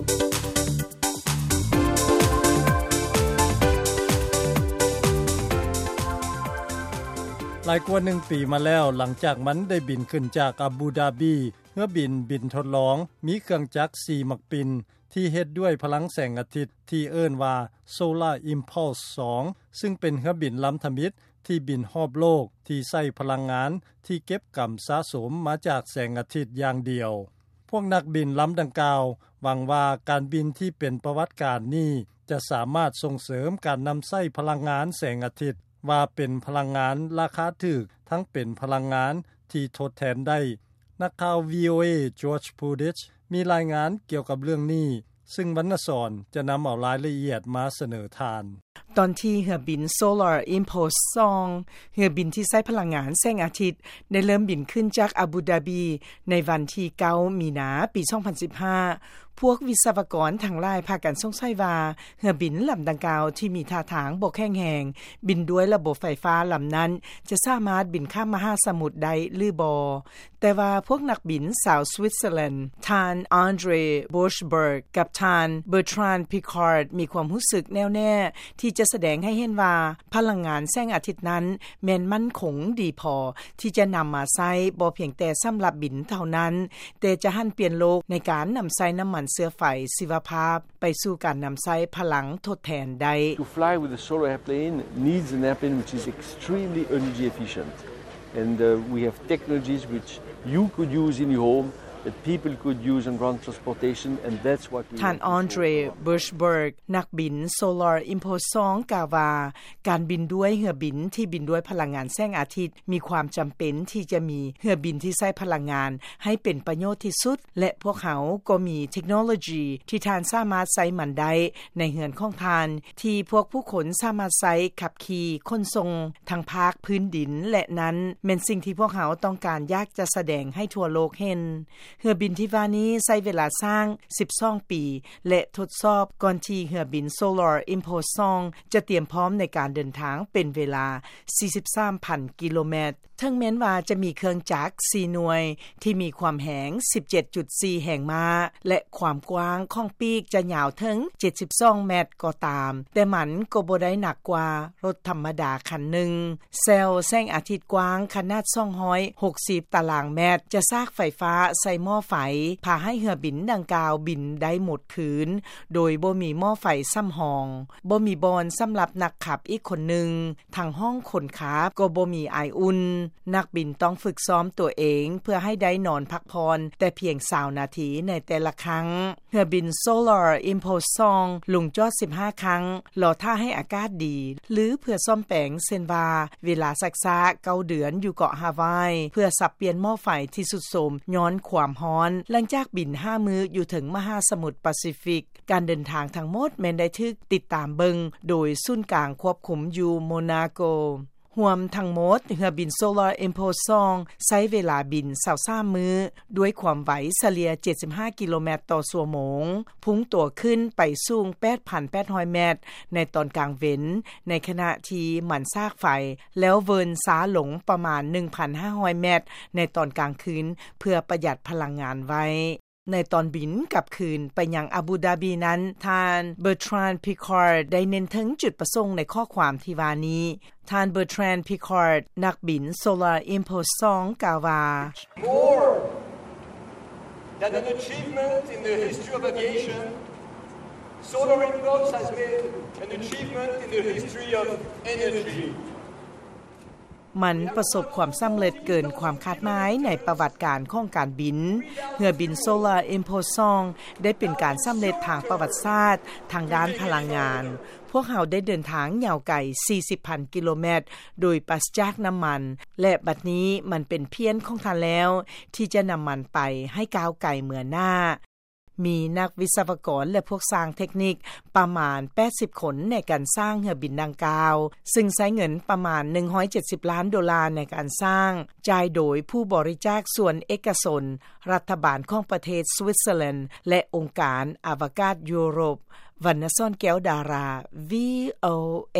ຫຼາຍກວ່າໜຶ່ງປີມາແລ້ວ, ຫຼັງຈາກມັນໄດ້ບິນຂຶ້ນຈາກອາບູດາບີ, ເຮືອບິນບິນທົດລອງມີເຄື່ອງຈັກສີ່ໝາກປິ່ນ ທີ່ເຮັດດ້ວຍພະລັງແສງອາທິດ ທີ່ເອີ້ນວ່າ Solar Impulse ສອງ ຊຶ່ງເປັນເຮືອບິນລຳທຳອິດທີ່ບິນຮອບໂລກ ທີ່ໃຊ້ພະລັງງານທີ່ເກັບກຳສະສົມມາຈາກແສງອາທິດຢ່າງດຽວ. ພວກນັກບິນລຳດັ່ງກ່າວຫວັງວ່າ ການບິນທີ່ເປັນປະຫວັດການນີ້ ຈະສາມາດສົ່ງເສີມການນຳໃຊ້ພະລັງງານແສງອາທິດ ວ່າເປັນພະລັງງານລາຄາຖືກ ທັງເປັນພະລັງງານທີ່ທົດແທນໄດ້. ນັກຂ່າວ ວີໂອເອ George Pudich ມີລາຍງານກ່ຽວກັບເລື່ອງນີ້, ຊຶ່ງວັນນະສອນຈະນຳເອົາລາຍລະອຽດມາສະເໜີທ່ານ. ຕອນທີ່ເຮືອບິນ Solar Impulse ສອງ ເຮືອບິນທີ່ໃຊ້ພະລັງງານແສງອາທິດ ໄດ້ເລີ່ມບິນຂຶ້ນຈາກອາບູດາບີ ໃນວັນທີເກົ້າ ມີນາ ປີສອງພັນສິບຫ້າ ພວກວິສະວະກອນທັງຫຼາຍພາກັນສົງໄສວ່າ ເຮືອບິນລຳດັ່ງກ່າວທີ່ມີທ່າທາງບໍ່ແຂງແຮງ ບິນດ້ວຍລະບົບໄຟຟ້າລຳນັ້ນ ຈະສາມາດບິນຂ້າມມະຫາສະໝຸດໄດ້ຫຼືບໍ່. ແຕ່ວ່າພວກນັກບິນຊາວສະວິດເຊີແລນ ທ່ານ Andre Borschberg ກັບທ່ານ Bertrand Piccard ມີຄວາມຮູ້ສຶກແນ່ວແນ່ທີ່ຈະສະແດງໃຫ້ເຫັນວ່າ ພະລັງງານແສງອາທິດນັ້ນແມ່ນໝັ້ນຄົງດີພໍທີ່ຈະນຳມາໃຊ້ບໍ່ພຽງແຕ່ສຳລັບບິນເທົ່ານັ້ນ, ແຕ່ຈະຫັນປ່ຽນໂລກໃນການນຳໃຊ້ນ້ຳມັນເຊື້ອໄຟຊີວະພາບໄປສູ່ການນຳໃຊ້ພະລັງທົດແທນໄດ້. To fly with a solar airplane needs an airplane which is extremely energy efficient. And, uh, we have technologies which you could use in your home, that people could use on ground transportation, and that's what we ທ່ານ Andre Borschberg ນັກບິນ Solar Impulse ສອງ ກ່າວວ່າ ການບິນດ້ວຍເຮືອບິນທີ່ບິນດ້ວຍພະລັງງານແສງອາທິດ ມີຄວາມຈຳເປັນທີ່ຈະມີເຮືອບິນທີ່ໃຊ້ພະລັງງານໃຫ້ເປັນປະໂຫຍດທີ່ສຸດ ແລະ ພວກເຮົາກໍມີເທັກໂນໂລຢີທີ່ທ່ານສາມາດໃຊ້ມັນໄດ້ໃນເຮືອນຂອງທ່ານ ທີ່ພວກຜູ້ຄົນສາມາດໃຊ້ຂັບຂີ່ຂົນສົ່ງທັງພາກພື້ນດິນ ແລະ ນັ້ນແມ່ນສິ່ງທີ່ພວກເຮົາຕ້ອງການຢາກຈະສະແດງໃຫ້ທົ່ວໂລກເຫັນ. ເຮືອບິນທີ່ວ່ານີ້ໃຊ້ເວລາສ້າງສິບສອງປີ ແລະ ທົດສອບກ່ອນທີ່ເຮືອບິນ Solar Impulse ສອງ ຈະຕຽມພ້ອມໃນການເດີນທາງເປັນເວລາສີ່ສິບສາມພັນກິໂລແມັດ. ເຖິງແມ່ນວ່າຈະມີເຄື່ອງຈັກສີ່ໜ່ວຍທີ່ມີຄວາມແຮງສິບເຈັດຈຸດສີ່ແຮງມ້າ ແລະ ຄວາມກວ້າງຂອງປີກຈະຍາວເຖິງເຈັດສິບສອງແມັດກໍຕາມ, ແຕ່ມັນກໍບໍ່ໄດ້ໜັກກວ່າລົດທຳມະດາຄັນໜຶ່ງ. ເຊວແສງອາທິດກວ້າງຂະໜາດສອງຮ້ອຍຫົກສິບຕາລາງແມັດ ຈະສາກໄຟຟ້າໃສ່ໝໍ້ໄຟ ພາໃຫ້ເຮືອບິນດັ່ງກ່າວບິນໄດ້ໝົດຄືນ ໂດຍບໍ່ມີໝໍ້ໄຟສຳຮອງ, ບໍ່ມີບ່ອນສຳລັບນັກຂັບອີກຄົນໜຶ່ງ. ທັງຫ້ອງຄົນຂັບກໍບໍ່ມີອາຍອຸ່ນ. ນັກບິນຕ້ອງຝຶກຊ້ອມຕົວເອງເພື່ອໃຫ້ໄດ້ນອນພັກຜ່ອນແຕ່ພຽງຊາວນາທີໃນແຕ່ລະຄັ້ງ. ເຮືອບິນ Solar Impulse ສອງ ລົງຈອດສິບຫ້າຄັ້ງ, ລໍຖ້າໃຫ້ອາກາດດີ ຫຼື ເພື່ອສ້ອມແປງ, ເຊັ່ນວ່າ ເວລາຊັກຊ້າເກົ້າເດືອນຢູ່ເກາະຮາວາຍ ເພື່ອສັບປ່ຽນໝໍ້ໄຟທີ່ຊຸດໂຊມຍ້ອນຄວາມຮ້ອນ. ຫຼັງຈາກບິນຫ້າມື້ຢູ່ເທິງມະຫາສະໝຸດປາຊີຟິກ, ການເດີນທາງທັງໝົດແມ່ນໄດ້ຖືກຕິດຕາມເບິ່ງໂດຍສູນກາງຄວບຄຸມຢູ່ໂມນາໂກ. ຮວມທັງໝົດ, ເຮືອບິນ Solar Impulse ສອງ ໃຊ້ເວລາບິນຊາວສາມມື້ ດ້ວຍຄວາມໄວສະເລ່ຍເຈັດສິບຫ້າກິໂລແມັດຕໍ່ຊົ່ວໂມງ, ພຸ່ງຕົວຂຶ້ນໄປສູງແປດພັນແປດຮ້ອຍແມັດໃນຕອນກາງເວັນ, ໃນຂະນະທີ່ມັນສາກໄຟ ແລ້ວເວີນຊ້າລົງປະມານໜຶ່ງພັນຫ້າຮ້ອຍແມັດໃນຕອນກາງຄືນ ເພື່ອປະຢັດພະລັງງານໄວ້. ໃນຕອນບິນກັບຄືນໄປຍັງອາບູດາບີນັ້ນ, ທ່ານ Bertrand Piccard ໄດ້ເນັ້ນເຖິງຈຸດປະສົງໃນຂໍ້ຄວາມທີ່ວ່ານີ້. ທ່ານ Bertrand Piccard ນັກບິນ Solar Impulse ສອງ ກ່າວວ່າ More than an achievement in the history of aviation, Solar Impulse has made an achievement in the history of energy. ມັນປະສົບຄວາມສຳເລັດເກີນຄວາມຄາດໝາຍໃນປະຫວັດການຂອງການບິນ. ເຮືອບິນ Solar Impulse ສອງ ໄດ້ເປັນການສຳເລັດທາງປະຫວັດສາດທາງດ້ານພະລັງງານ. ພວກເຮົາໄດ້ເດີນທາງຍາວໄກສີ່ສິບພັນກິໂລແມັດໂດຍປາສຈາກນ້ຳມັນ ແລະ ບັດນີ້ມັນເປັນພຽນຂອງທ່ານແລ້ວທີ່ຈະນຳມັນໄປໃຫ້ກ້າວໄກເມືອໜ້າ. ມີນັກວິສະວະກອນ ແລະ ພວກຊ່າງເທັກນິກປະມານແປດສິບຄົນໃນການສ້າງເຮືອບິນດັ່ງກ່າວ, ຊຶ່ງໃຊ້ເງິນປະມານໜຶ່ງຮ້ອຍເຈັດສິບລ້ານໂດລາໃນການສ້າງ, ຈ່າຍໂດຍຜູ້ບໍລິຈາກສ່ວນເອກະຊົນ, ລັດຖະບານຂອງປະເທດສະວິດເຊີແລນ ແລະ ອົງການອະວະກາດຢູໂຣບ. ວັນນະສອນ ແກ້ວດາລາ ວີໂອເອ.